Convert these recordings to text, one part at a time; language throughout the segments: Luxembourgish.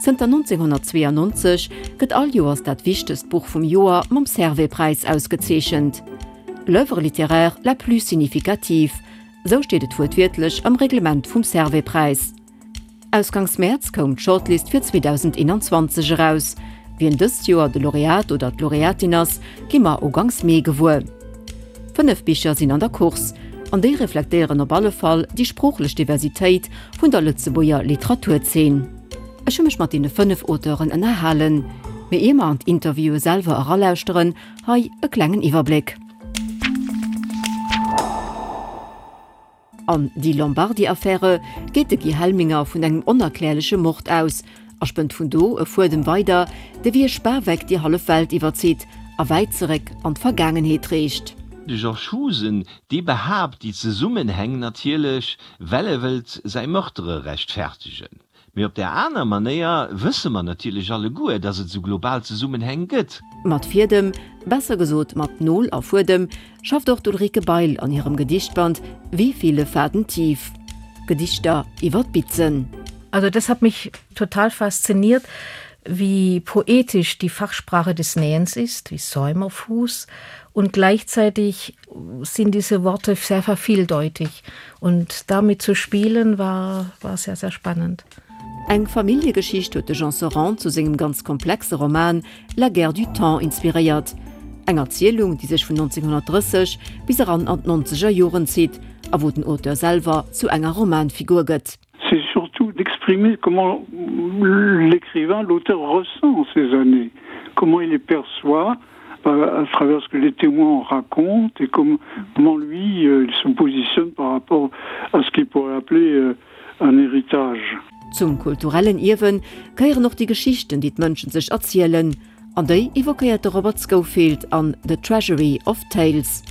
Zënter 1992 gëtt all Joers dat wichtegst Buch vum Joer mam Servais-Präis ausgezeechent. L'œuvre littéraire la plus significative, sou steet et wuertwiertlech am Reglement vum Servais-Präis. Ausgangs Mäerz koum d'Shortlist fir 2021 eraus. Wien dëst Joer de Laureat oder d'Laureatin ass, gi mer ugangs Mee gewuer. 5 Bicher sinn an der Course, an déi reflektéieren op alle Fall déi sproochlech Diversitéit vun der Lëtzebuerger Literaturzeen. Ech hu mech mat deene 5 Auteuren ënnerhalen. Mee ier mer an d'Interviewe selwer eralauschteren, hei e klengen Iwwerbléck. An Die Lombardi-Affäre geet de Guy Helminger vun engem onerklärleche Mord aus a spënnt vun do e Fuedem weider, dee wéi e Spaweck déi hallef Welt iwwerzitt a wäit zeréck an d'Vergaangenheet reecht. De Georges Husen, dee behaapt déi Zesummenhäng natierlech, well e wëllt säi Meurtere rechtfertegen. Mee op där aner Manéier wësse mer natierlech alleguer, dass et esou global Zesummenhäng gëtt. Mat Fiedem, besser gesot mat Nol a Fuedem, schafft och d'Ulrike Bail an hirem Gedichtband Wie viele Faden tief? Gedichter iwwer d'Bitzen. Also das hat mich total fasziniert, wie poetisch die Fachsprache des Nähens ist, wie Säumerfuß und gleichzeitig sind diese Worte sehr vervieldeutig und damit zu spielen war, war sehr, sehr spannend. Eng Familljegeschicht huet de Jean Serrand zu sengem ganz komplexe Roman La guerre du temps inspiréiert. Eng Erzielung, déi sech vun 1930 bis eran an d'nonzeger Joren zitt a wou den Auteur selwer zu enger Romanfigur gëtt. C'est surtout d'exprimer comment l'écrivain, l'auteur ressent ces années, comment il les perçoit à travers ce que les témoins racontent et comment, comment lui euh, il se positionne par rapport à ce qu'il pourrait appeler euh, un héritage. Zum kulturellen Ierwen gehéieren och déi Geschichten, déi d'Mënschen sech erzielen, an déi evoquéiert de Robert Scofield an The Treasury of Tales.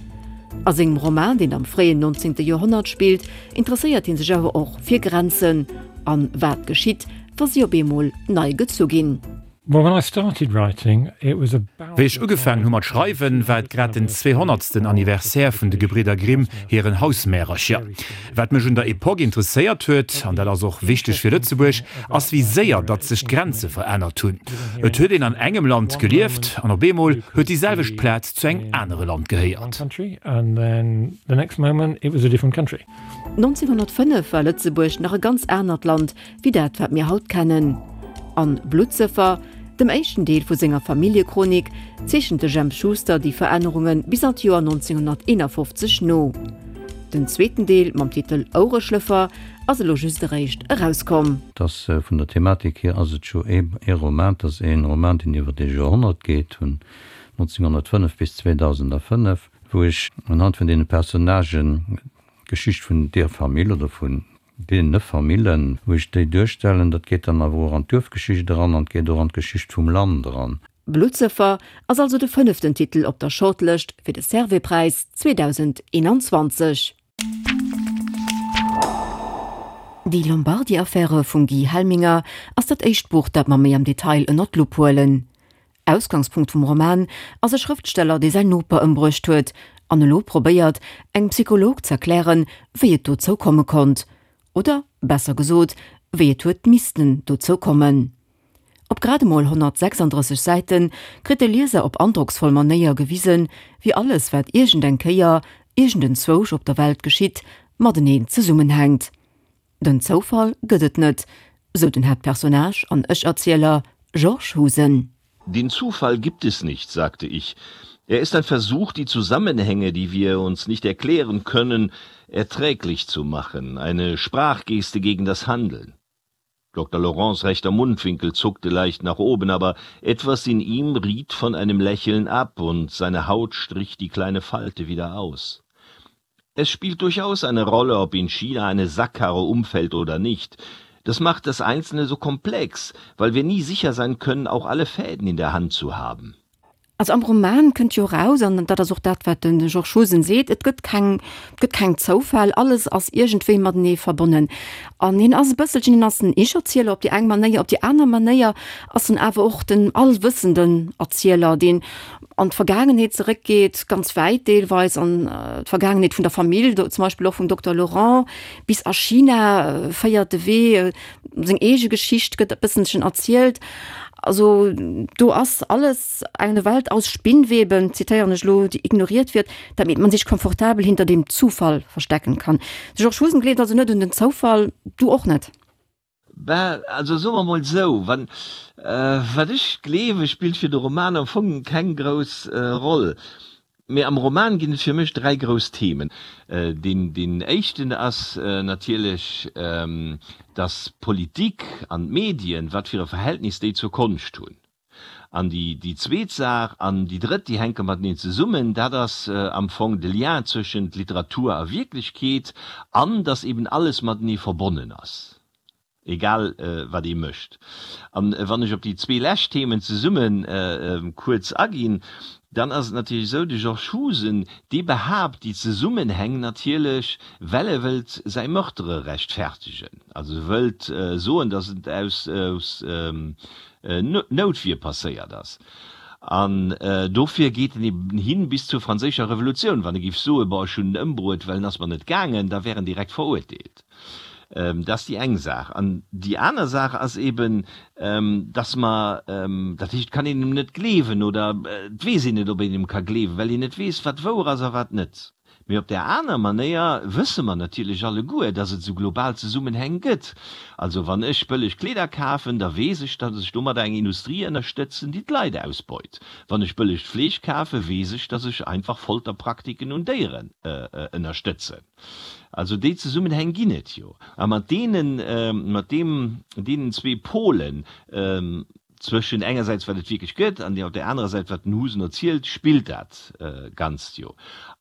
A sengem Roman, deen am fréien 19. Joerhonnert spillt, interesséiert hie sech awer och fir Grenzen an wat geschitt, wa si op eemol nei gezu ginn. Wéi ech ugefaangen hu mat schreiwen, war et grad den zweehonnertsten Anniversaire vun de Gebridder Grimm hiren Hausmärercher. Wat mech un der Epoque interesséiert huet, an dat ass och wichteg fir Lëtzebuerg, ass wéi séier datt sech d'Grenze verännert hunn. Et huet een an engem Land gelieft an op eemol huet déi selwecht Plaz zu engem anere Land gehéiert. 1905 war Lëtzebuerg nach e ganz anert Land wéi dat wat mir haut kennen. An Bluttsëffer, dem éischten Deel vu senger Familljechronik, zeechent de Jemp Schuster déi Verännerunge bis an d'Joer 1951 no. Den zweeten Deel mam Titel Oureschlëffer ass elo just eréischt erauskomm. Et ass vun der Thematik hier ass et jo ee Roman, et ass ee Roman deen iwwer ee Joerhonnert geet, vun 1905 bis 2005, wou ech unhand vun deene Personnagen d'Geschicht vun deer Famill oder vun Deene Famillen, wou ech déi duerstellen, dat geet dann awer och an d'Duerfgeschicht eran an et geet och an d'Geschicht vum Land eran. Bluttsëffer ass also de fënneften Titel op der Shortlëscht fir de Servais-Präis 2021. Die Lombardi-Affäre vum Guy Helminger ass dat éischt Buch, dat mer méi am Detail ënnert d'Lupp huelen. Ausgangspunkt vum Roman ass e Schrëftsteller, dee säin Noper ëmbruecht huet an elo probéiert, engem Psycholog z'erklären, wéi et dozou komme konnt. Oder besser gesot, wéi et huet missten dozou kommen. Op grad emol 136 Säite kritt de Lieser op androcksvoll Manéier gewisen, wéi alles, wat iergendeng Kéier iergendenzwousch op der Welt geschitt, mateneen zesummenhänkt. Den Zoufall gëtt et net, sou den Haaptpersonnage an Ech-Erzieler Georges Husen. Den Zufall gibt es nicht, sagte ich. Er ist ein Versuch, die Zusammenhänge, die wir uns nicht erklären können, erträglich zu machen, eine Sprachgeste gegen das Handeln. Dr. Laurents rechter Mundwinkel zuckte leicht nach oben, aber etwas in ihm riet von einem Lächeln ab und seine Haut strich die kleine Falte wieder aus. Es spielt durchaus eine Rolle, ob in China eine Sackkarre umfällt oder nicht. Das macht das Einzelne so komplex, weil wir nie sicher sein können, auch alle Fäden in der Hand zu haben. Also am Roman kënnt jo eraus, an dat ass och dat, wat de Georges Husen seet, et gëtt keng, et gëtt keng Zoufäll, alles ass iergendwéi matenee verbonnen. An hien ass e bësselchen, hien ass en Ich-Erzieler op déi eng Manéier, op déi aner Manéier ass en awer och den allwëssenden Erzieler, deen an d'Vergaangenheet zeréckgeet, ganz wäit deelweis, an d'Vergaangenheet vun der Famill, do zum Beispill och vum Dokter Laurent, bis a China féiert de Wee, seng eege Geschicht gëtt e bësselchen erzielt. Also do ass alles eine Welt aus Spinnweben, zitéieren ech elo, die ignoriert wird, damit man sich komfortabel hinter dem Zufall verstecken kann. De Georges Husen gleeft also net un den Zoufall, du och net? Ben, also soe mer mol esou, wann, wat ech gleewe spillt fir de Roman am Fong keng grouss Roll. Mee am Roman ginn et fir mech 3 grouss Themen. Deen éischten ass natierlech, dass d'Politik an d'Medien, wat fir e Verhältnis déi zur Konscht hunn. An déi zweet Saach an déi drëtt, déi hänke mateneen zesummen, dat ass am Fong de Lien zwëschent Literatur a Wierklechkeet an dass eben alles matenee verbonnen ass. Egal wat ee mécht. An wann ech op déi zwee lescht Themen zesumme kuerz aginn, dann ass et natierlech esou, de Georges Husen, dee behaapt déi Zesummenhäng natierlech, well e wëllt säi Meurtre rechtfertegen, also e wëllt soen, datt et aus Noutwier passéiert ass. An dofir geet en eben hin bis zur franséischer Revolutioun. Wann e géif soen, bon, ech hunn en ëmbruet, well en ass mer net gaangen, da wär en direkt verurteelt. Dat ass déi eng Saach. An déi aner Saach ass eben, dass mer, dat heescht, et kann een em net gleewen oder et weess een net, ob een em ka gleewen, well een net weess, wat wouer ass a wat net. Mee op där aner Manéier wësse mer natierlech alleguer, dass et esou global Zesummenhäng gëtt. Also wann ech bëlleg Kleeder kafen, da weess ech, dass ech domadder eng Industrie ënnerstëtzen, déi d'Leit ausbeut. Wann ech bëllegt Fleesch kafen, weess ech, dass ech einfach Folterpraktiken un Déieren ënnerstëtzen. Also déi Zesummenhäng ginn et jo. A mat deenen, mat deem, deenen zwee Polen, zwëschen engersäits wat et wierklech gëtt an op där anerer Säit wat den Husen erzielt, spillt dat Ganzt jo.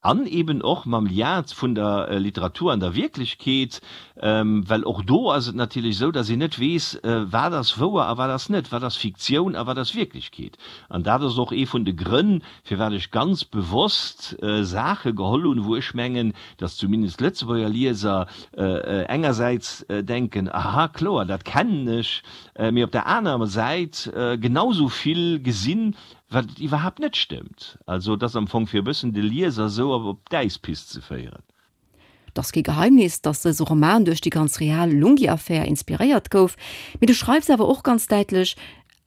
An eben och mam Lien vun der Literatur an der Wierklechkeet, well och do ass et natierlech esou, datt een net weess, wat ass wouer a wat ass net, wat ass Fiktioun a wat ass Wierklechkeet. An dat ass och ee vun de Grënn, firwat ech ganz bewosst Saache geholl hunn, wou ech mengen, datt zumindest Lëtzebuerger Lieser engersäits denken, aha, kloer, dat kennen ech, mee op der anerer Säit genau sou vill gesinn, wat iwwerhaapt net stëmmt. Also et ass am Fong fir e bëssen de Lieser esou op d'Äispist ze féieren. Et ass kee Geheimnis, datt dëse Roman duerch déi ganz real Lunghi-Affär inspiréiert gouf, mee du schreifs awer och ganz däitlech,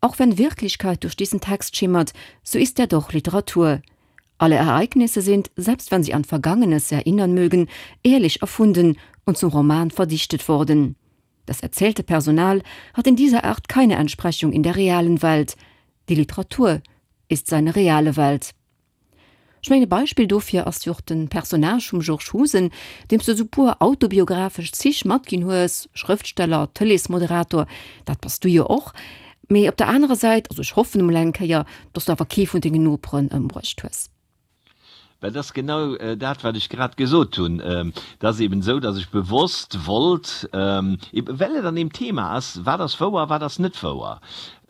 Auch wenn Wirklichkeit durch diesen Text schimmert, so ist er doch Literatur. Alle Ereignisse sind, selbst wenn sie an Vergangenes erinnern mögen, ehrlich erfunden und zum Roman verdichtet worden. Das erzählte Personal hat in dieser Art keine Entsprechung in der realen Welt. Die Literatur ist seine reale Welt. Ech mengen e Beispill dofir ass jo och den Personnage vum Georges Husen, deem s de esou puer autobiographesch Zich matginn hues, Schrëftsteller, Tëleesmoderator, dat bass du jo och, mee op der anerer Säit, also ech hoffen emol eng Kéier, dass du awer kee vun dengen Noperen ëmbruecht hues. Well dat ass genau dat, wat ech grad gesot hunn. Et ass eben esou, dass ech bewosst wollt, eben well et an deem Thema ass, wat ass wouer a wat ass net wouer,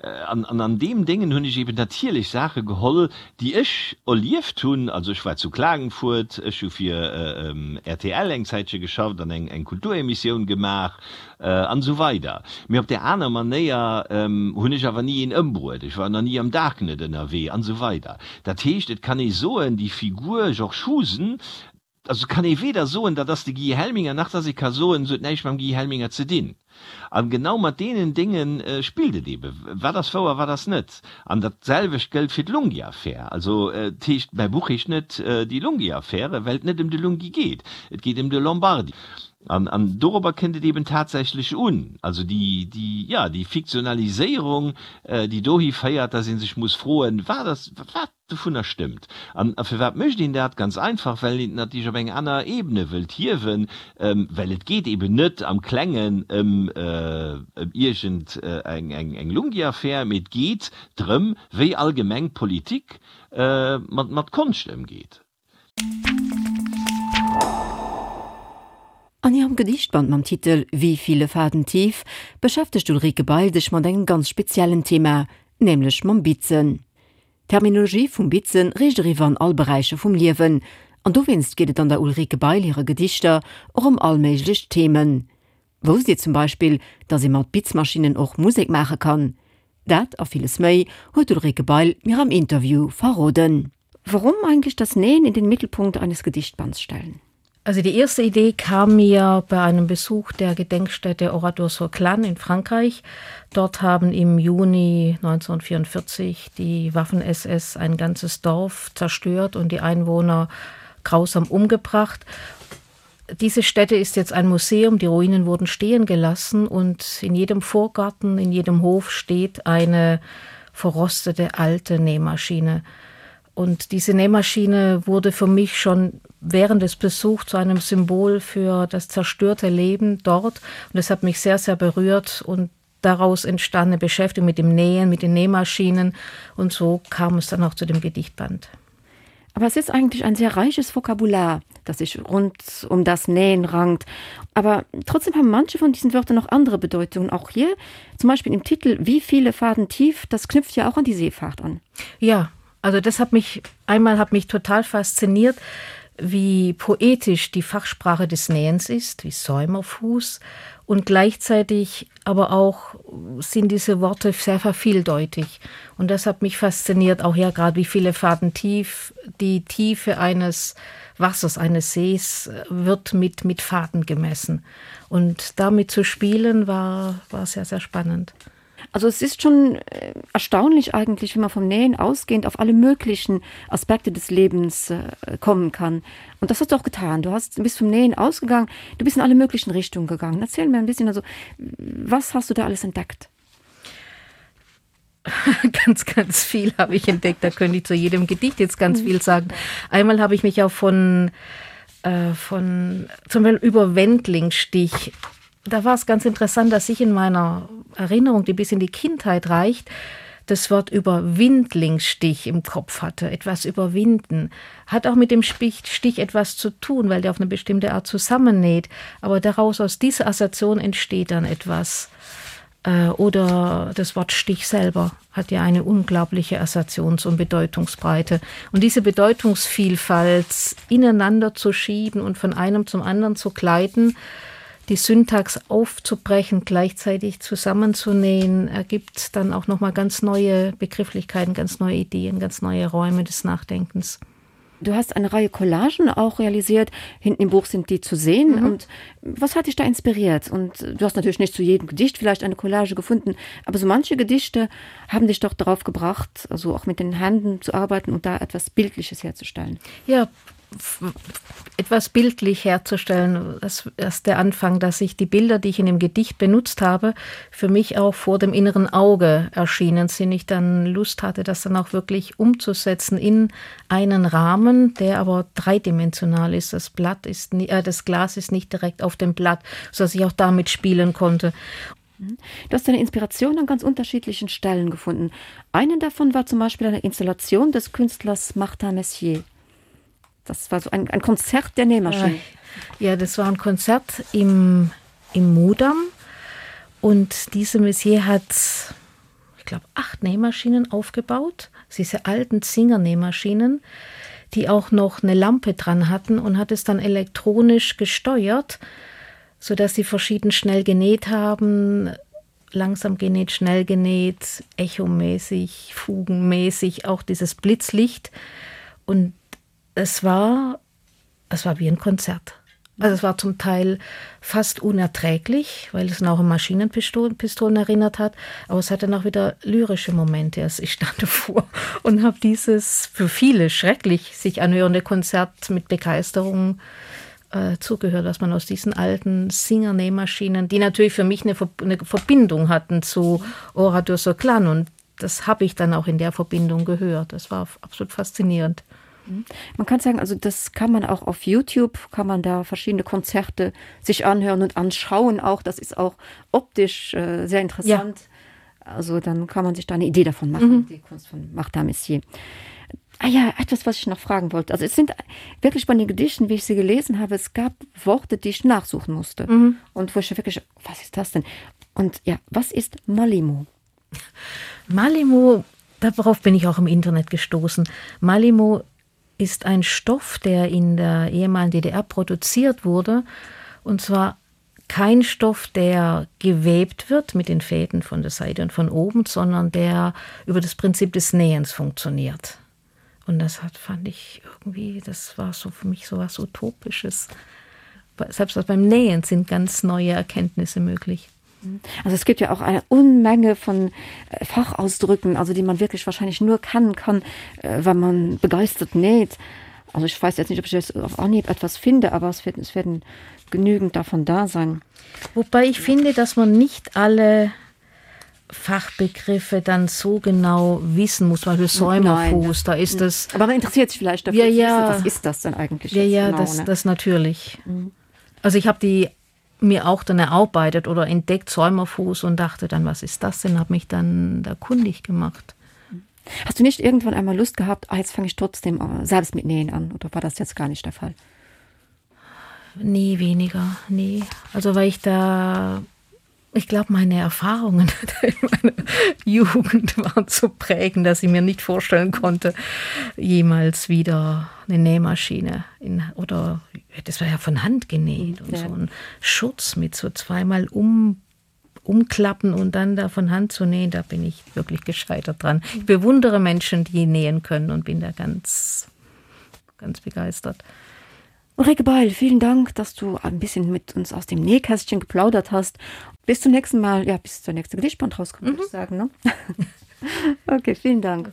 An an deem Déngen hunn ech eben natierlech Saache geholl, déi ech erlieft hunn. Also ech war zu Klagenfurt, ech hu fir rtl eng Zäitche geschafft an eng Kulturemissioun gemaach an esou weider. Mee op där aner Manéier hunn ech awer ni een ëmbruet, ech war nach ni am Darknet ënnerwee an esou weider. Dat heescht, et kann ee soen, déi Figur Georges Husen, Also kann ee weder soen, dat ass de Guy Helminger, nach dass ee ka soen, se huet näischt mam Guy Helminger ze dinn. A genau mat deenen Dénge spillt et eeben. Wat ass wouer, wat ass net? An dat selwecht gëllt fir d'Lunghi-Affär. Also et heescht, mäi Buch heescht net Die Lunghi-Affäre, well et net ëm de Lunghi geet. Et geet ëm de Lombardi. An dorobber kënnt et eeben tatsächlech un. Also déi, déi, jo, déi Fiktionaliséierung, déi dohi féiert, dass ee sech muss froen, Wat ass, wat? Dovunner stëmmt. An firwat mécht een dat? Ganz einfach, well een et natierlech op eng aner Ebene wëllt hiewen, well et geet eben net am Klengen ëm iergend eng Lunghi-Affär, mee et geet drëm, wéi allgemeng d'Politik mat Konscht ëmgeet. An hirem Gedichtband mam Titel Wie viele Faden tief beschäftegt d'Ulrike Bail sech mat engem ganz speziellen Thema, nämlech mam Bitzen. D'Terminologie vum Bitzen reecht eriwwer an all Beräicher vum Liewen, an dowéinst geet et an der Ulrike Bail hire Gedichter och ëm all méiglech Themen. Wousst Dir zum Beispill, dass ee mat Bitzmaschinnen och Musek maache kann? Dat a villes méi huet d'Ulrike Bail mir am Interview verroden. Warum eigentlich das Nähen in den Mittelpunkt eines Gedichtbands stellen? Also die erste Idee kam mir bei einem Besuch der Gedenkstätte Oradour-sur-Glane in Frankreich. Dort haben im Juni 1944 die Waffen-SS ein ganzes Dorf zerstört und die Einwohner grausam umgebracht. Diese Stätte ist jetzt ein Museum, die Ruinen wurden stehen gelassen und in jedem Vorgarten, in jedem Hof steht eine verrostete alte Nähmaschine. Und diese Nähmaschine wurde für mich schon während des Besuchs zu einem Symbol für das zerstörte Leben dort. Und das hat mich sehr, sehr berührt und daraus entstand eine Beschäftigung mit dem Nähen, mit den Nähmaschinen und so kam es dann auch zu dem Gedichtband. Aber es ist eigentlich ein sehr reiches Vokabular, das sich rund um das Nähen rankt. Aber trotzdem haben manche von diesen Wörtern noch andere Bedeutungen. Auch hier, zum Beispiel im Titel Wie viele Faden tief, das knüpft ja auch an die Seefahrt an. Ja, also das hat mich einmal hat mich total fasziniert, wie poetisch die Fachsprache des Nähens ist, wie Säumerfuß und gleichzeitig aber auch sind diese Worte sehr vervieldeutig. Und das hat mich fasziniert, auch ja gerade wie viele Faden tief die Tiefe eines Wassers eines Sees äh, wird mit, mit Faden gemessen. Und damit zu spielen war, war sehr, sehr spannend. Also es ist schon äh, erstaunlich eigentlich, wenn man vom Nähen ausgehend auf alle möglichen Aspekte des Lebens äh, kommen kann. Und das hast du auch getan. Du hast bist vom Nähen ausgegangen, du bist in alle möglichen Richtungen gegangen. Erzähl mir ein bisschen also, was hast du da alles entdeckt? ganz ganz viel habe ich entdeckt da könnte ich zu jedem Gedicht jetzt ganz mhm. viel sagen einmal habe ich mich auch von äh, von zum Beispiel über Wendlingstich da war es ganz interessant dass ich in meiner Erinnerung die bis in die Kindheit reicht das Wort über Windlingsstich im Kopf hatte etwas überwinden hat auch mit dem Stich Stich etwas zu tun weil der auf eine bestimmte Art zusammennäht aber daraus aus dieser Assoziation entsteht dann etwas äh, oder das Wort Stich selber hat ja eine unglaubliche Assoziations- und Bedeutungsbreite. Und diese Bedeutungsvielfalt ineinander zu schieben und von einem zum anderen zu gleiten, die Syntax aufzubrechen, gleichzeitig zusammenzunähen, ergibt dann auch noch mal ganz neue Begrifflichkeiten, ganz neue Ideen, ganz neue Räume des Nachdenkens. Du hast eine Reihe Collagen auch realisiert. Hinten im Buch sind die zu sehen. Mhm. Und was hat dich da inspiriert? Und du hast natürlich nicht zu jedem Gedicht vielleicht eine Collage gefunden, aber so manche Gedichte haben dich doch darauf gebracht, also auch mit den Händen zu arbeiten und da etwas Bildliches herzustellen. Ja, etwas bildlich herzustellen. Das ist der Anfang, dass ich die Bilder, die ich in dem Gedicht benutzt habe, für mich auch vor dem inneren Auge erschienen sind. Ich dann Lust hatte, das dann auch wirklich umzusetzen in einen Rahmen, der aber dreidimensional ist. Das Blatt ist nie, äh, das Glas ist nicht direkt auf dem Blatt, sodass ich auch damit spielen konnte. Mhm. Du hast deine Inspiration an ganz unterschiedlichen Stellen gefunden. Einen davon war zum Beispiel eine Installation des Künstlers Martin Messier. Das war so ein, ein Konzert der Nähmaschine. Ja, das war ein Konzert im, im Mudam. Und diese Messier hat, ich glaube, acht Nähmaschinen aufgebaut. Diese alten Zingernähmaschinen, die auch noch eine Lampe dran hatten und hat es dann elektronisch gesteuert, sodass sie verschieden schnell genäht haben, langsam genäht, schnell genäht, echomäßig, fugenmäßig, auch dieses Blitzlicht. Und es war, es war wie ein Konzert. Also es war zum Teil fast unerträglich, weil es noch an Maschinenpistolen Pistolen erinnert hat, aber es hatte noch wieder lyrische Momente. Also ich stand davor und habe dieses für viele schrecklich sich anhörende Konzert mit Begeisterung äh, zugehört, was man aus diesen alten Singernähmaschinen, die natürlich für mich eine, Ver eine Verbindung hatten zu Oradur Soklan und das habe ich dann auch in der Verbindung gehört. Das war absolut faszinierend. Mhm. Man kann sagen, also das kann man auch auf YouTube, kann man da verschiedene Konzerte sich anhören und anschauen auch. Das ist auch optisch äh, sehr interessant. Ja. Also dann kann man sich da eine Idee davon machen, mhm. die Kunst von Martha Messier. Ah ja, etwas, was ich noch fragen wollte. Also es sind wirklich bei den Gedichten, wie ich sie gelesen habe, es gab Worte, die ich nachsuchen musste. Mhm. Und wo ich wirklich, was ist das denn? Und ja, was ist Malimo? Malimo. Darauf bin ich auch im Internet gestoßen. Malimo ist ein Stoff, der in der ehemaligen DDR produziert wurde und zwar kein Stoff, der gewebt wird mit den Fäden von der Seite und von oben, sondern der über das Prinzip des Nähens funktioniert. Und das hat fand ich irgendwie, das war so für mich so was Utopisches. Selbst beim Nähen sind ganz neue Erkenntnisse möglich. Also es gibt ja auch eine Unmenge von äh, Fachausdrücken, also die man wirklich wahrscheinlich nur kennen kann, äh, wenn man begeistert näht. Also ich weiß jetzt nicht, ob ich jetzt auf Anhieb etwas finde, aber es, wird, es werden genügend davon da sein. Wobei ich finde, dass man nicht alle Fachbegriffe dann so genau wissen muss, weil Säumerfuß, da ist das. Aber man interessiert sich vielleicht dafür, ja, ja. was ist das denn eigentlich? Ja, ja, genau, das, ne? das natürlich. Mhm. Also ich habe die mir auch dann erarbeitet oder entdeckt Säumerfuß und dachte dann, was ist das denn, habe mich dann da kundig gemacht. Hast du nicht irgendwann einmal Lust gehabt, ah, jetzt fange ich trotzdem äh, selbst mit Nähen an oder war das jetzt gar nicht der Fall? Nee, weniger, nee. Also weil ich da ich glaube, meine Erfahrungen in meiner Jugend waren so prägend, dass ich mir nicht vorstellen konnte, jemals wieder eine Nähmaschine in, oder das war ja von Hand genäht und ja. so ein Schutz mit so zweimal um umklappen und dann da von Hand zu nähen, da bin ich wirklich gescheitert dran. Ich bewundere Menschen, die nähen können und bin da ganz ganz begeistert. Ulrike Beil, vielen Dank, dass du ein bisschen mit uns aus dem Nähkästchen geplaudert hast. Bis zum nächsten Mal, ja, bis zur nächste Gedichtband rauskommt, mhm. würde ich sagen. Ne? okay, vielen Dank.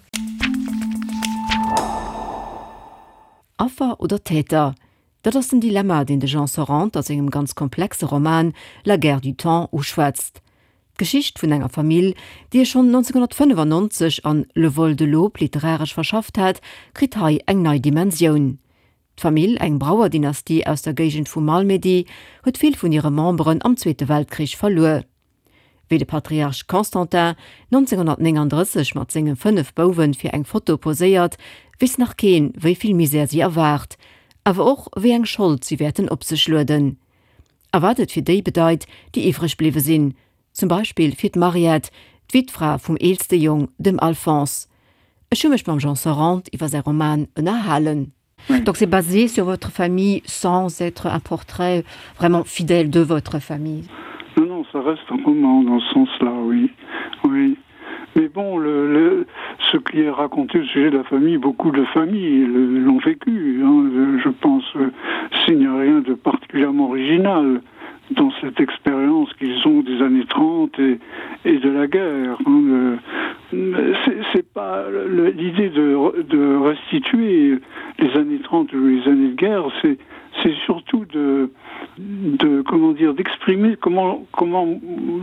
Affer oder Täter? Dat ass den Dilemma, deen de Jean Sorrente a sengem ganz komplexe Roman La guerre du temps uschwätzt. D'Geschicht vun enger Famill, déi e schonn 1995 an Le vol de l'aube literaresch verschafft hat, kritt hei eng nei Dimensioun. D'Famill, eng Brauerdynastie aus der Géigend vu Malmedy, huet vill vun hire Memberen am Zweete Weltkrich verluer. Wéi de Patriarch Constantin 1939 mat senge 5 Bouwe fir eng Foto poséiert, weess nach keen, wéi vill Misär si erwaart, awer och wéi eng Schold si wäerten op sech lueden. A wat et fir déi bedeit, déi iwwreg bliwwe sinn, zum Beispill fir d'Mariette, d'Wittfra vum eelste Jong, dem Alphonse. Ech hu mech mam Jean Sorrente iwwer säi Roman ënnerhalen. Donc c'est basé sur votre famille sans être un portrait vraiment fidèle de votre famille. Non, non, ça reste un roman dans ce sens-là, oui. Oui. Mais bon, le, le, ce qui est raconté au sujet de la famille, beaucoup de familles l'ont vécu. Hein. Je pense euh, s'il n'y a rien de particulièrement original dans cette expérience qu'ils ont des années 30 et, et de la guerre. Hein. C'est pas l'idée de, de restituer les années 30 ou les années de guerre, c'est surtout de, de comment dire d'exprimer comment comment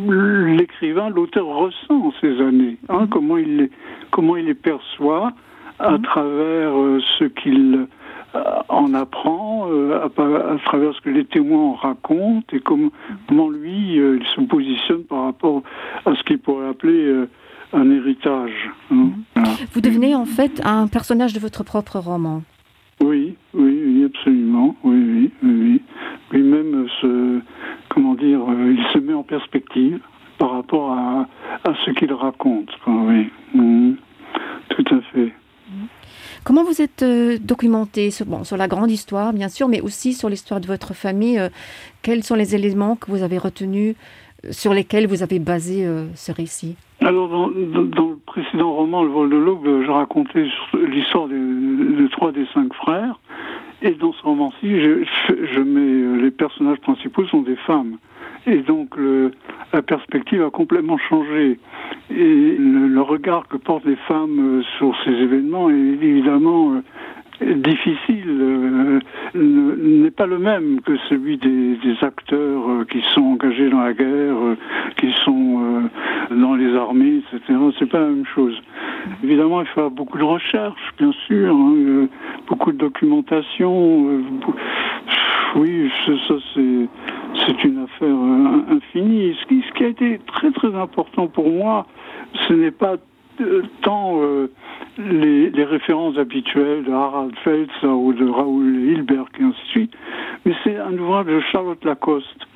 l'écrivain l'auteur ressent ces années hein, comment il les, comment il les perçoit à mmh. travers euh, ce qu'il euh, en apprend euh, à, à travers ce que les témoins racontent et comme, comment lui euh, il se positionne par rapport à ce qu'il pourrait appeler euh, un héritage hein. Mmh. Voilà. Vous devenez en fait un personnage de votre propre roman. Oui, oui, oui absolument oui, oui, oui, oui. lui-même se comment dire euh, il se met en perspective par rapport à, à ce qu'il raconte quoi, oui mmh. tout à fait. Comment vous êtes euh, documenté sur, bon, sur la grande histoire, bien sûr, mais aussi sur l'histoire de votre famille euh, Quels sont les éléments que vous avez retenus, euh, sur lesquels vous avez basé euh, ce récit Alors dans, dans, dans le précédent roman Le vol de l'aube, je racontais l'histoire de, de trois des cinq frères. Et dans ce roman-ci, je, je mets euh, les personnages principaux sont des femmes. Et donc le, la perspective a complètement changé. Et le, le regard que portent les femmes euh, sur ces événements est évidemment euh, difficile euh, n'est pas le même que celui des, des acteurs euh, qui sont engagés dans la guerre, euh, qui sont euh, dans les armées, etc. C'est pas la même chose. Évidemment, il faut beaucoup de recherches, bien sûr, hein, euh, beaucoup de documentation. Euh, oui, ça c'est une affaire euh, infinie. Ce qui, ce qui a été très très important pour moi, ce n'est pas euh, tant euh, les, les références habituelles de Harald Feltz ou de Raoul Hilberg et ainsi de suite, mais c'est un ouvrage de Charlotte Lacoste.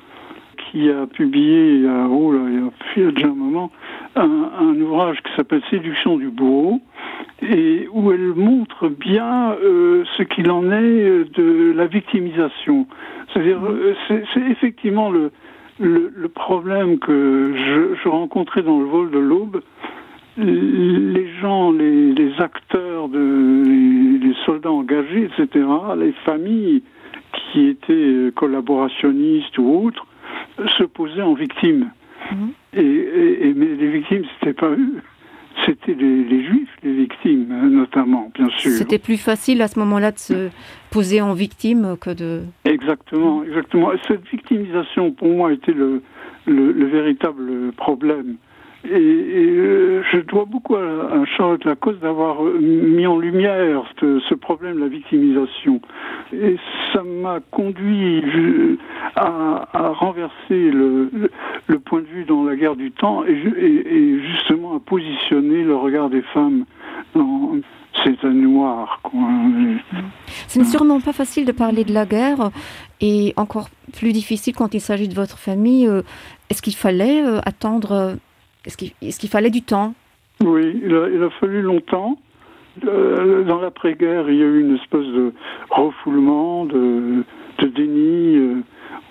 qui a publié il y a, oh là, il y a déjà un moment un, un ouvrage qui s'appelle Séduction du bourreau et où elle montre bien euh, ce qu'il en est euh, de la victimisation. C'est-à-dire euh, c'est effectivement le, le, le problème que je, je rencontrais dans le vol de l'aube, les gens, les, les acteurs, de, les, les soldats engagés, etc., les familles qui étaient euh, collaborationnistes ou autres, se posaient en victimes. Mmh. Et, et, et mais les victimes, c'était pas eux c'était les, les juifs les victimes notamment bien sûr c'était plus facile à ce moment là de se poser en victime que de exactement exactement et cette victimisation pour moi était le, le, le véritable problème et, et euh, je dois beaucoup à, à Charlotte Lacoste d'avoir euh, mis en lumière ce, ce problème de la victimisation et ça m'a conduit je, à, à renverser le, le, le point de vue dans la guerre du temps et, et, et justement à positionner le regard des femmes dans ces années noires quoi. Ce n'est sûrement pas facile de parler de la guerre et encore plus difficile quand il s'agit de votre famille. Euh, est-ce qu'il fallait euh, attendre est-ce qu'il est qu'il fallait du temps Oui, il a, il a fallu longtemps. Euh, dans l'après-guerre, il y a eu une espèce de refoulement, de, de déni. Euh,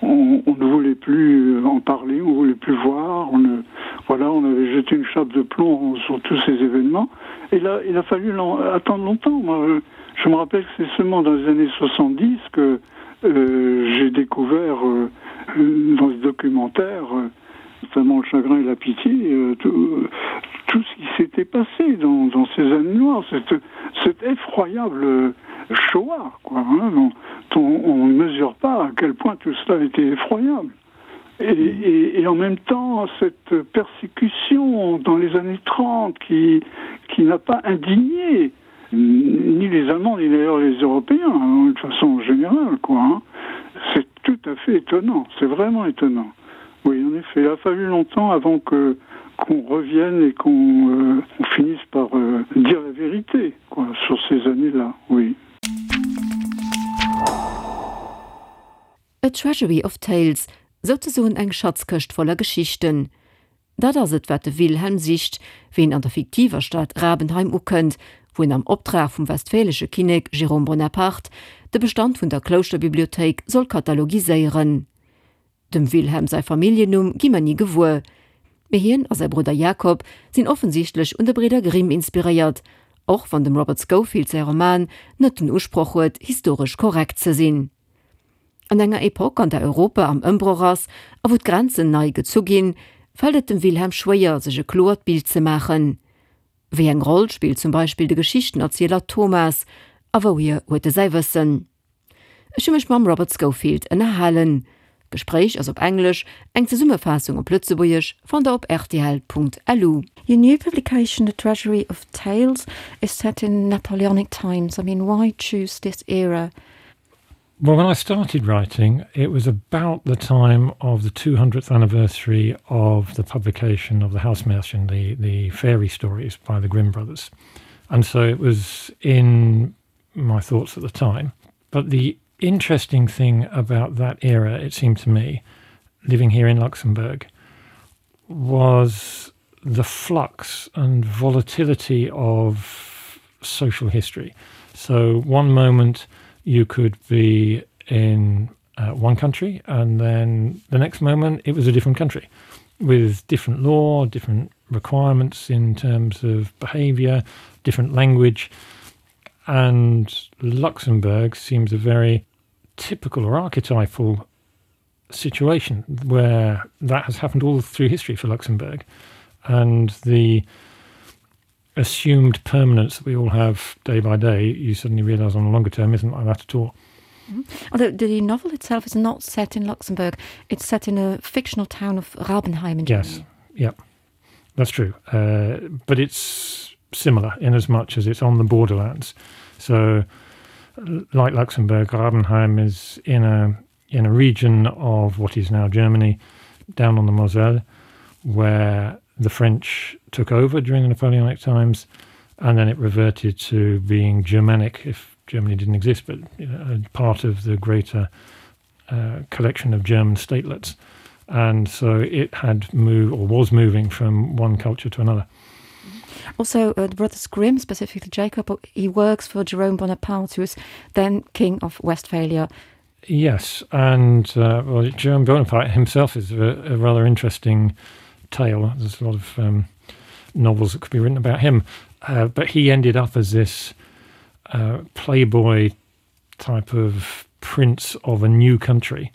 on, on ne voulait plus en parler, on ne voulait plus voir. On ne, voilà, on avait jeté une chape de plomb sur tous ces événements. Et là, il a fallu attendre longtemps. Moi, je, je me rappelle que c'est seulement dans les années 70 que euh, j'ai découvert euh, dans ce documentaire, euh, notamment le chagrin et la pitié, euh, tout, tout ce qui s'était passé dans, dans ces années noires, cette, cette effroyable Shoah, quoi, hein, dont on, on ne mesure pas à quel point tout cela était effroyable. Et, et, et en même temps, cette persécution dans les années 30 qui, qui n'a pas indigné ni les Allemands ni d'ailleurs les Européens hein, de façon générale quoi hein. C'est tout à fait étonnant, c'est vraiment étonnant. Oui, en effet, il a fallu longtemps avant que qu'on revienne et qu'on euh, finisse par euh, dire la vérité quoi, sur ces années-là, oui. A Treasury of Tales, souzesoen eng Schatzkëscht voller Geschichten. Dat ass et, wat de Wilhelm sicht, wéi en an der fiktiver Stad Rabenheim ukënnt, wou en am Optrag vum westfälesche Kinnek Jérôme Bonaparte de Bestand vun der Klouschterbibliothéik soll katalogiséieren. Dem Wilhelm säi Familljennumm gi mer ni gewuer, mee hien a säi Brudder Jakob sinn offensichtlech un de Bridder Grimm inspiréiert, och wann dem Robert Scofield säi Roman net den Usproch huet, historesch korrekt ze sinn. An enger Epoque, an der Europa am Ëmbroch ass a wou d'Grenzen nei gezu ginn, fält et dem Wilhelm schwéier, sech e kloert Bild ze maachen. Wéi eng Roll spillt zum Beispill de Geschichtenerzieler Thomas a wouhier huet e säi Wëssen? Ech hu mech mam Robert Scofield ënnerhalen. D'Gespréich ass op Englesch, eng Zesummefaassung op Lëtzebuergesch fannt der op rtl.lu. Your new publication, The Treasury of Tales, is set in Napoleonic times. I mean, why choose this era? Well, when I started writing, it was about the time of the 200th anniversary of the publication of the Hausmärchen, the, the fairy stories by the Grimm brothers. And so it was in my thoughts at the time. But the interesting thing about that era, it seemed to me, living here in Luxembourg, was the flux and volatility of social history. So one moment you could be in uh, one country and then the next moment it was a different country with different law, different requirements in terms of behavior, different language. And Luxembourg seems a very typical or archetypal situation where that has happened all through history for Luxembourg. And the assumed permanence that we all have day by day, you suddenly realize on the longer term isn't like that at all. Mm -hmm. Although the novel itself is not set in Luxembourg, it's set in a fictional town of Rabenheim in Germany. Yes, yeah, that's true. Uh, but it's similar in as much as it's on the borderlands. So like Luxembourg, Rabenheim is in a in a region of what is now Germany, down on the Moselle, where the French took over during the Napoleonic times, and then it reverted to being Germanic, if Germany didn't exist, but you know, part of the greater uh, collection of German statelets. And so it had moved or was moving from one culture to another. Also, uh, the Brothers Grimm, specifically Jacob, he works for Jerome Bonaparte, who is then King of Westphalia. Yes, and uh, well, Jerome Bonaparte himself is a, a rather interesting tale. There's a lot of um, novels that could be written about him. Uh, but he ended up as this uh, playboy type of prince of a new country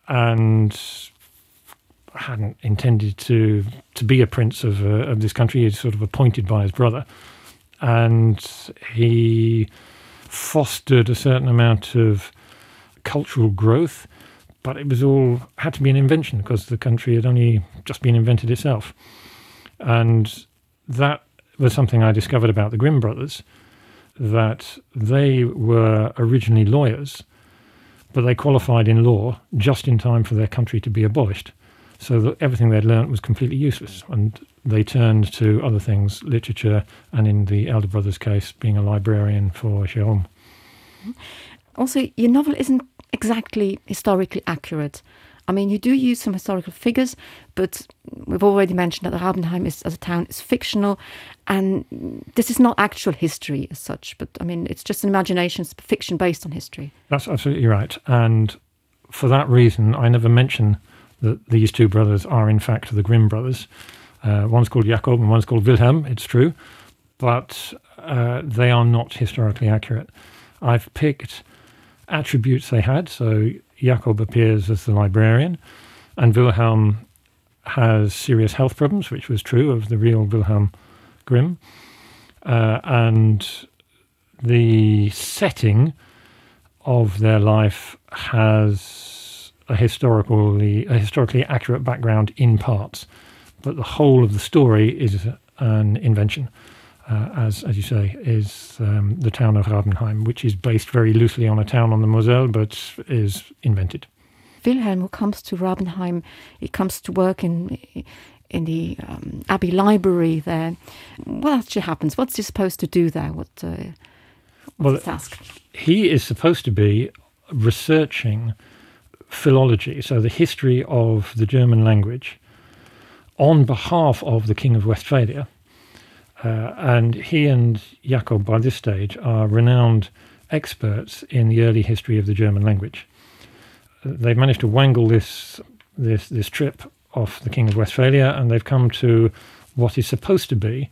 and hadn't intended to to be a prince of, uh, of this country. He's sort of appointed by his brother. And he fostered a certain amount of cultural growth, but it was all had to be an invention because the country had only just been invented itself. And that was something I discovered about the Grimm brothers, that they were originally lawyers, but they qualified in law just in time for their country to be abolished. So that everything they'd learnt was completely useless. And they turned to other things, literature, and in the elder brother's case, being a librarian for Jerome. Also, your novel isn't exactly historically accurate. I mean, you do use some historical figures, but we've already mentioned that Rabenheim is, as a town is fictional, and this is not actual history as such, but I mean, it's just an imagination, it's fiction based on history. That's absolutely right. And for that reason, I never mention that these two brothers are in fact the Grimm brothers. Uh, one's called Jakob and one's called Wilhelm, it's true, but uh, they are not historically accurate. I've picked attributes they had, so Jakob appears as the librarian, and Wilhelm has serious health problems, which was true of the real Wilhelm Grimm. Uh, and the setting of their life has a historically, a historically accurate background in parts, but the whole of the story is an invention. Uh, as, as you say, is um, the town of Rabenheim, which is based very loosely on a town on the Moselle, but is invented. Wilhelm, who comes to Rabenheim, he comes to work in in the um, Abbey Library there. What actually happens? What's he supposed to do there? What, uh, what's well, his task? He is supposed to be researching philology, so the history of the German language, on behalf of the King of Westphalia. Uh, and he and Jakob, by this stage, are renowned experts in the early history of the German language. They've managed to wangle this, this, this trip off the King of Westphalia, and they've come to what is supposed to be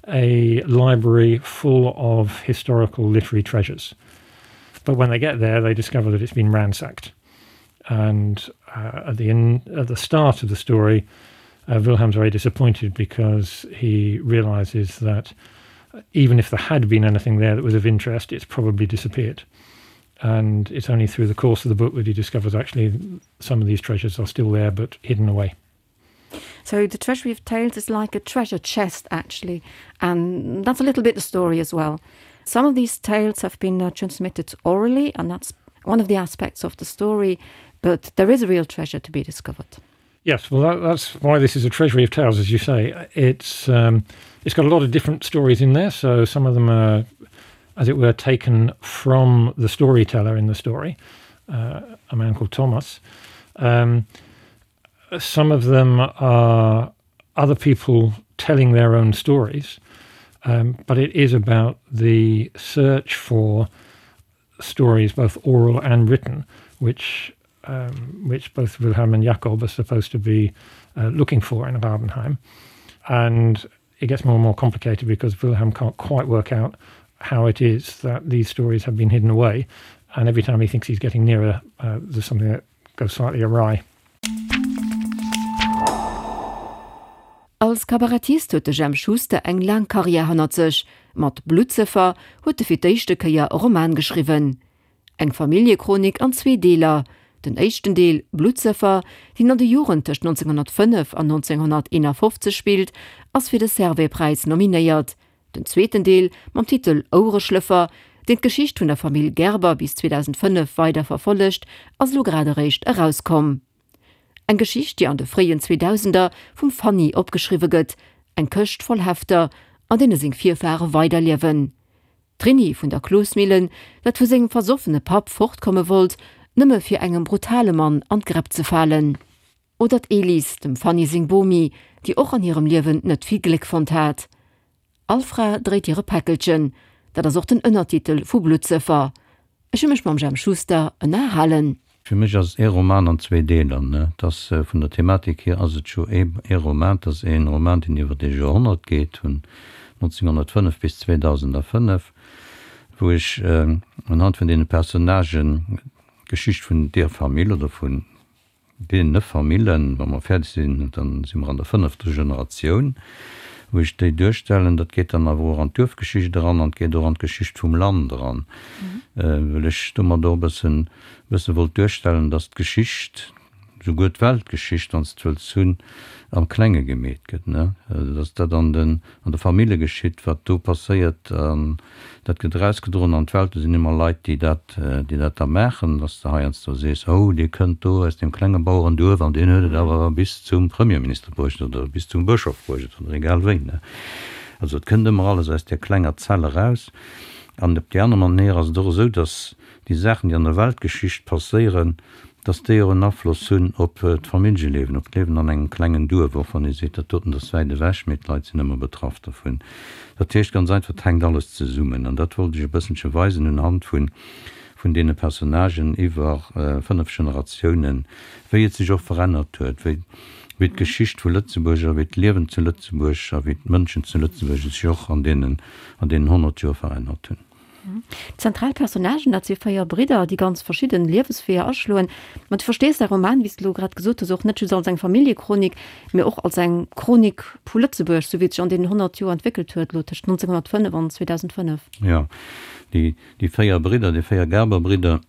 a library full of historical literary treasures. But when they get there, they discover that it's been ransacked. And uh, at, the in, at the start of the story, uh, Wilhelm's very disappointed because he realizes that even if there had been anything there that was of interest, it's probably disappeared. And it's only through the course of the book that he discovers actually some of these treasures are still there but hidden away. So the Treasury of Tales is like a treasure chest actually, and that's a little bit the story as well. Some of these tales have been uh, transmitted orally, and that's one of the aspects of the story, but there is a real treasure to be discovered. Yes, well that, that's why this is a treasury of tales, as you say. It's um, it's got a lot of different stories in there, so some of them are, as it were, taken from the storyteller in the story, uh, a man called Thomas. Um, some of them are other people telling their own stories, um, but it is about the search for stories, both oral and written, which um, which both Wilhelm and Jakob are supposed to be uh, looking for in Rabenheim. And it gets more and more complicated because Wilhelm can't quite work out how it is that these stories have been hidden away. And every time he thinks he's getting nearer, uh, there's something that goes slightly awry. Als Kabarettist huet de Jemp Schuster eng laang Karriär hannert sech. Mat Bluttsëffer huet e fir d'éischte Kéier e Roman geschriwwen. Eng Familljechronik an zwee Deeler. Den éischten Deel, Bluttsëffer, deen an de Joren tëscht 1905 an 1951 spillt, ass fir de Servais-Präis nominéiert. Den zweeten Deel mam Titel Ouereschlëffer, deen d'Geschicht vun der Famill Gerber bis 2005 weider verfollegt, ass elo grad eréischt erauskomm. Eng Geschicht, déi an de fréien Zweedausender vum Fanny opgeschriwwe gëtt, eng Këscht voll Hefter, an deene seng Virfare weiderliewen. D'Trini vun der Klosmillen, dat vu sengem versoffene Papp fortkomme wollt, nëmme fir engem brutale Mann an d'Gräpp ze falen. Oder d'Elis, dem Fanny seng Bomi, déi och an hirem Liewen net vill Gléck fonnt hat. All Fra dréit hire Päckelchen, dat ass och den Ënnertitel vu Bluttsëffer. Ech hu mech mam Jemp Schuster ënnerhalen. Fir mech ass et ee Roman an zwee Deeler. Et ass vun der Thematik hier ass et jo ee Roman, et ass ee Roman, deen iwwer ee Joerhonnert geet, vun 1905 bis 2005, wou ech unhand vun deene Personnagen d'Geschicht vun deer Famill oder vun Deene Famillen, wa mer fäerdeg sinn, da si mer an der fënnefter Generatioun, wou ech déi duerstellen. Dat geet dann awer och an d'Duerfgeschicht eran an et geet och an d'Geschicht vum Land eran, well ech domat och e bëssen, e bësse wollt duerstellen, dass d'Geschicht, souguer d'Weltgeschicht, wann s de wëlls hunn, am Klenge gemeet gëtt, ne, dass dat an den, an de Famille geschitt, wat do passéiert, an dat gëtt erausgedroen an d'Welt. Do sinn ëmmer Leit, déi dat, déi dat da maachen, dass de heiansdo sees, Oh, dee kënnt do aus deem klenge Bauerenduerf an deen huet et awer bis zum Premierminister bruecht oder bis zum Bëschof bruecht oder egal wéi. Also et kënnt ëmmer alles aus där klenger Zell eraus. An op déi aner Manéier ass et och esou, dass déi Saachen, déi an der Weltgeschicht passéieren, dass déi och en Afloss hunn op d'Familljeliewen, op d'Liewen an engem klengen Duerf, och wann ee seet, dat doten ass wäit ewech, mee d'Leit sinn ëmmer betraff dervun. Dat heescht ganz einfach, et hänkt alles zesummen. An dat wollt ech e bësselche weisen unhand vun vun deene Personnagen iwwer 5 Generatiounen, wéi et sech och verännert huet, wéi wéi d'Geschicht vu Lëtzebuerg a wéi d'Liewen zu Lëtzebuerg a wéi d'Mënschen zu Lëtzebuerg sech och an deenen an deenen 100 Joer verännert hunn. Zentral Personnagen, dat si 4 Bridder, déi ganz verschidden Liewesweeër aschloen. Ma du verstees däi Roman, wéi s de elo grad gesot hues, och net just als eng Familljechronik, mee och als eng Chronik vu Lëtzebuerg, sou wéi et sech an deenen 100 Joer entwéckelt huet, elo tëscht 1905 an 2005. Jo, déi, déi 4 Bridder, déi 4 Gerber-Bridder,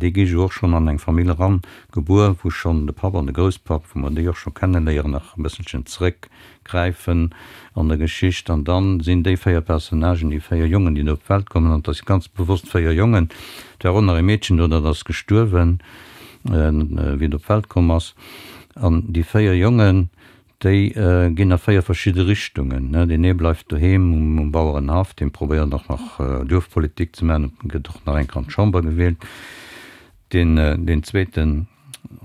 déi gi jo och schonn an eng Famill eran gebuer, wou schonn de Papp an de Grousspapp, wou mer déi och scho kenneléieren, nach e bësselchen zréck gräifen an der Geschicht. An dann sinn déi 4 Personnagen, déi 4 Jongen, déi do op d'Welt kommen, an et ass ganz bewosst 4 Jongen, et war och nach e Meedchen do, dat ass gestuerwen, wéi et op d'Welt komm ass, an déi 4 Jongen, déi ginn a 4 verschidde Richtungen. Deen ee bleift doheem um Bauerenhaff, dee probéiert och nach Duerfpolitik ze maachen, gëtt och nach eng Kéier an d'Chamber gewielt. Deen zweeten,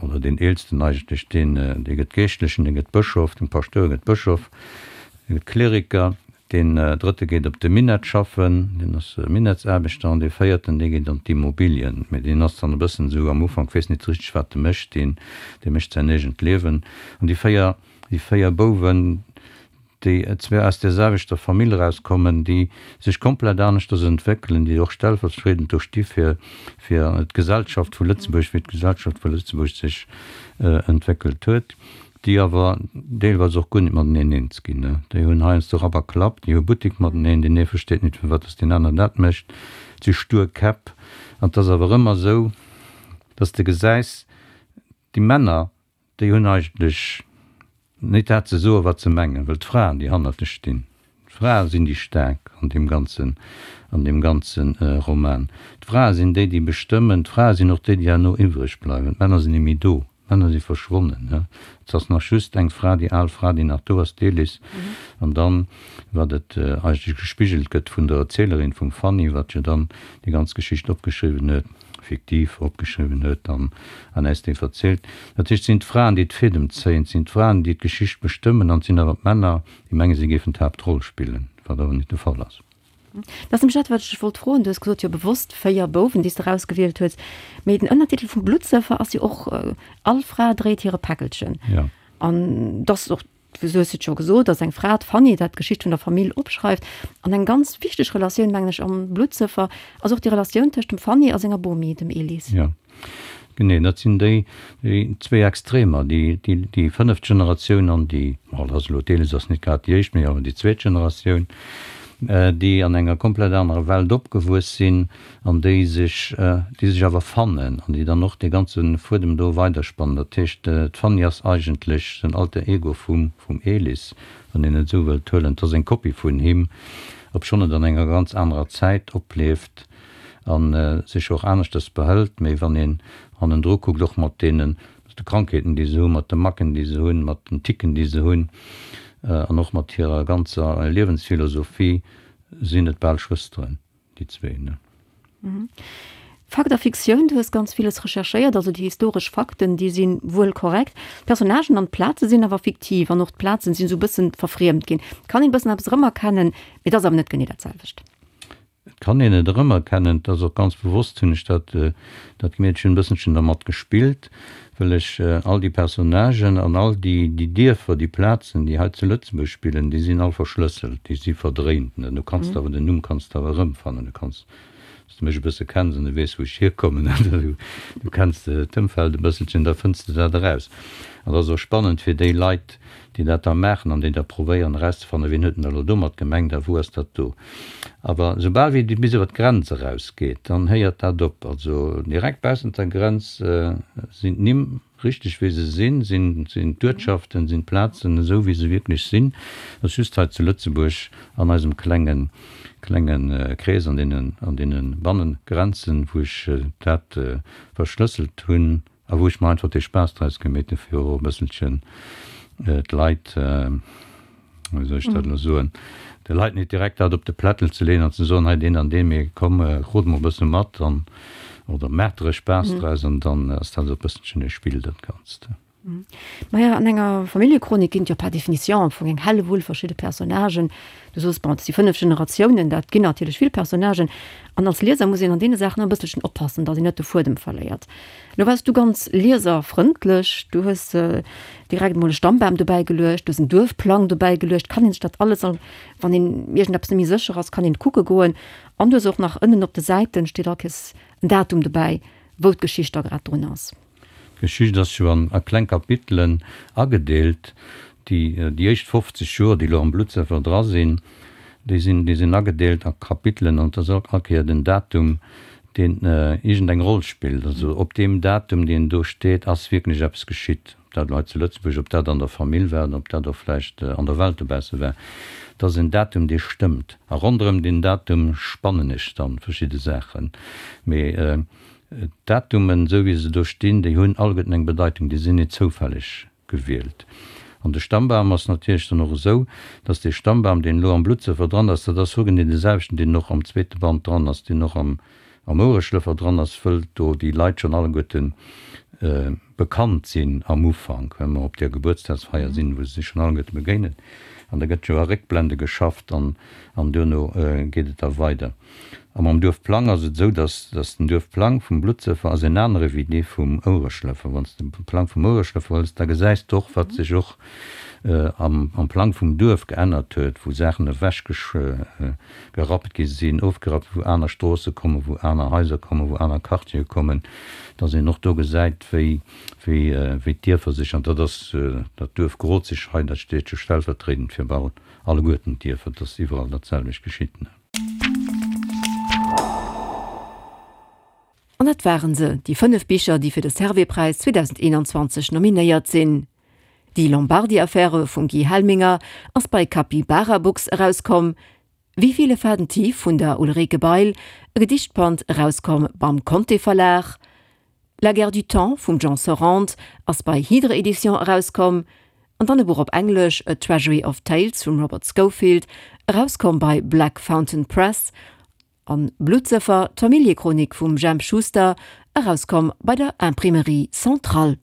oder deen eelsten eigentlech, deen, dee gëtt Geeschtlechen, dee gëtt Bëschof, den Paschtouer gëtt Bëschof, dee gëtt Kleriker, deen drëtte geet op de Minett schaffen, deen ass Minettsaarbechter, an dee véierten, dee geet an d'Immobilien, mä deen ass dann e bëssen esou am Ufank, weess nit richteg wat e mécht, deen, dee mécht säin eegent Liewen. An déi 4, déi 4 Bouwen, déi zwar aus där selwechter Famill erauskommen, déi sech komplett aneschters entwéckelen, déi och stellvertriedend do sti fir fir d'Gesellschaft vu Lëtzebuerg, wéi d'Gesellschaft vu Lëtzebuerg sech entwéckelt huet, déi awer deelweis och guer net mateneen eens ginn. Déi hunn heiansdo Rapp a Klapp, déi hu Buttek mateneen, deen ee versteet net, firwat datt deen aner dat mécht, et si stur Käpp. An et ass awer ëmmer esou, datt s de gesäis, déi Männer, Déi hunn eigentlech nit dat ze soen, wat se mengen, well d'Fraen, déi hannert lech stinn, d'Frae sinn déi Staark an deem ganzen, an deem ganze Roman. D'Frae sinn déi, déi bestëmmen. D'Frae sinn och déi, déi herno iwwreg bleiwen. D'Männer sinn net méi do. D'Männer si verschwonnen. Et ass nach just eng Fra, déi al Fra, déi nach do ass, d'Elis. An dann, wat et eigentlech gespigelt gëtt vun der Erzielerin, vum Fanny, wat jo dann déi ganz Geschicht opgeschriwwen huet, fiktiv opgeschriwwen huet an an äis déi verzielt. Dat heescht, et sinn d'Fraen, déi d'Fädem zéien, et sinn d'Fraen, déi d'Geschicht bestëmmen an et sinn awer d'Männer, déi mengen, si géifen d'Haaptroll spillen, wat awer net de Fall ass. Dat ass nämlech dat, wat ech dech wollt froen. Du hues gesot, jo bewosst 4 Bouwen, déi s de erausgewielt hues. Mee den Ënnertitel vum Bluttsëffer ass jo och All Fra dréit hire Päckelchen. Jo. An dass och Du hues et scho gesot, dass eng Fra, d'Fanny, dat d'Geschicht vun der Famill opschreift. An eng ganz wichteg Relatioun, mengen ech, am Bluttsëffer ass och déi Relatioun tëscht dem Fanny a senger Bomi, dem Elis. Jo, genee. Dat sinn déi zwéi Extremer, déi, déi fënneft Generatioun an déi, bon, dat ass elo, d'Elis ass net grad déi éischt, mee awer déi zweet Generatioun, déi an enger komplett anerer Welt opgewuess sinn an déi sech, déi sech awer fannen an déi dann och dee ganze Fuedem do weiderspannen. Dat heescht, d'Fanny ass eigentlech den Alter Ego vum, vum Elis, wann een et esou wëllt huelen. Et ass eng Kopie vun him, obschonn et an enger ganz anerer Zäit oplieft a sech och aneschters behëlt. Mee wann een hannendru kuckt, och mat deenen, mat de Krankheeten, déi se hunn, mat de Macken, déi se hunn, mat den Ticken, déi se hunn, an och mat hirer ganzer Liewensphilosophie, sinn et bal Schwësteren. Déi zwee, ne? Fakt a Fiktioun, du hues ganz villes recherchéiert, also déi historesch Fakten, déi si wuel korrekt. D'Personnagen an d'Plaze sinn awer fiktiv an och d'Plazen sinn esou e bëssen verfriemt ginn. Et kann een e bëssen eppes erëmerkennen, mee et ass awer net genee dat selwecht. Et kann een et erëmerkennen, et ass och ganz bewosst hunn ech dat dat gemeet, ech hunn e bësselchen dermat gespillt, wëll ech all déi Personnagen an all déi déi Dierfer, déi Plazen, déi hei zu Lëtzebuerg spillen, déi sinn all verschlësselt, déi si verdréint. Du kanns awer den Numm kanns de awer erëmfannen, du kanns Wann s de mech e bësse kenns an du weess, wou ech hierkommen, du kenns d'Ëmfeld e bësselchen, da fënns de dat eraus. An dat ass och spannend fir déi Leit, déi dat da maachen an déi da probéieren erauszefannen, wien huet denn da elo domat gemengt a wou ass dat do. Awer soubal wéi et bis iwwer d'Grenz erausgeet, dann héiert dat op. Also direkt baussent der Grenz sinn d'Nimm Richteg wéi se sinn, sinn d'Uertschaften, sinn d'Plazen esou wéi se wierklech sinn. Et ass just hei zu Lëtzebuerg an eisem klenge klenge Krees, an deenen an deene Bannengrenzen, wou ech dat verschlësselt hunn a wou ech mer einfach dee Spaass draus gemeet hunn, fir och e bësselchen d'Leit, wéi soll ech dat elo soen, de Leit net direkt dat op de Plättel ze leeën an ze soen, hei deen an deen, mee komm, rot mol e bësse mat an, oder maacht der e Spaass draus an dann ass dat esou e bësselchen e Spill, dat Ganzt. Maja, an enger Familljechronik ginn et jo par définition am Fong eng Hellewull verschidde Personnagen. Du soos, bon, et si 5 Generatiounen, dat ginn natierlech vill Personnagen. An als Lieser muss een an deene Saachen e bësselchen oppassen, datt een net de Fuedem verléiert. Lo waars du ganz lieserfrëndlech, du hues direkt emol e Stammbam dobäi geluecht, du hues en Duerfplang dobäi geluecht, kann een sech dat alles, wann een iergendeppes net méi sécher ass, kann een kucke goen. An du hues och nach ënnen op de Säiten steet all Kéiers en Datum dobäi, wou d'Geschicht da grad drun ass. D'Geschicht ass jo an a kleng Kapitelen agedeelt. Déi déi éischt 50 Joer, déi elo am Bluttsëffer dra sinn, déi sinn déi sinn agedeelt a Kapitelen an et ass all Kéier den Datum, deen iergendeng Roll spillt. Also op deem Datum, deen do steet, ass wierklech eppes geschitt. Ob dat elo hei zu Lëtzebuerg, ob dat an der Famill war oder ob dat och vläicht an der Welt dobausse war. Et ass en Datum, dee stëmmt. A ronderëm deen Datum spannen ech dann verschidde Saachen. Mee d'Datumen, esou wéi se do stinn, déi hunn alleguerten eng Bedeitung, déi sinn net zoufälleg gewielt. An de Stammbam ass natierlech dann och esou, dass dee Stammbam, deen elo am Bluttsëffer dran ass, dat ass hogenee dee selwechten, deen och am zweete Band dran ass, deen och am am Ouereschlëffer dran ass, wëll do déi Leit schonn alleguerte bekannt sinn am Ufank, well mer op där Gebuertsdagsfeier sinn, wou se sech schonn alleguerte begéinen. An da gëtt jo a Réckblende geschafft an an duerno geet et da weider. A mam Duerfplang ass et esou, dass dass den Duerfplang vum Bluttsëffer ass en anere wéi dee vum Ouereschlëffer. Wann s de de Plang vum Ouereschlëffer hëls, da gesäis de och, wat sech och am am Plang vum Duerf geännert huet, wou Saachen ewech gerappt gi sinn, ofgerappt, wou aner Stroosse kommen, wou aner Haiser kommen, wou aner Quartiere kommen, dass een och do gesäit, wéi wéi wéi d'Dierfer sech, an dat ass dat Duerf Grozig hei, dat steet jo stellvertriedend fir bal alleguerten d'Dierfer, dass iwwerall dat selwecht geschitt. An dat waren se, déi 5 Bicher, déi fir de Servais-Präis 2021 nominéiert sinn. Die Lombardi-Affäre vum Guy Helminger ass bei Capybara Books erauskomm, Wie viele Faden tief vun der Ulrike Bail, e Gedichtband, erauskomm beim Conté Verlag, La guerre du temps vum Jean Sorrente ass bei Hydre Editions erauskomm, an dann e Buch op Englesch, A Treasury of Tales vum Robert Schofield, erauskomm bei Black Fountain Press, an Bluttsëffer, d'Familljechronik vum Jemp Schuster, erauskomm bei der Imprimerie Centrale.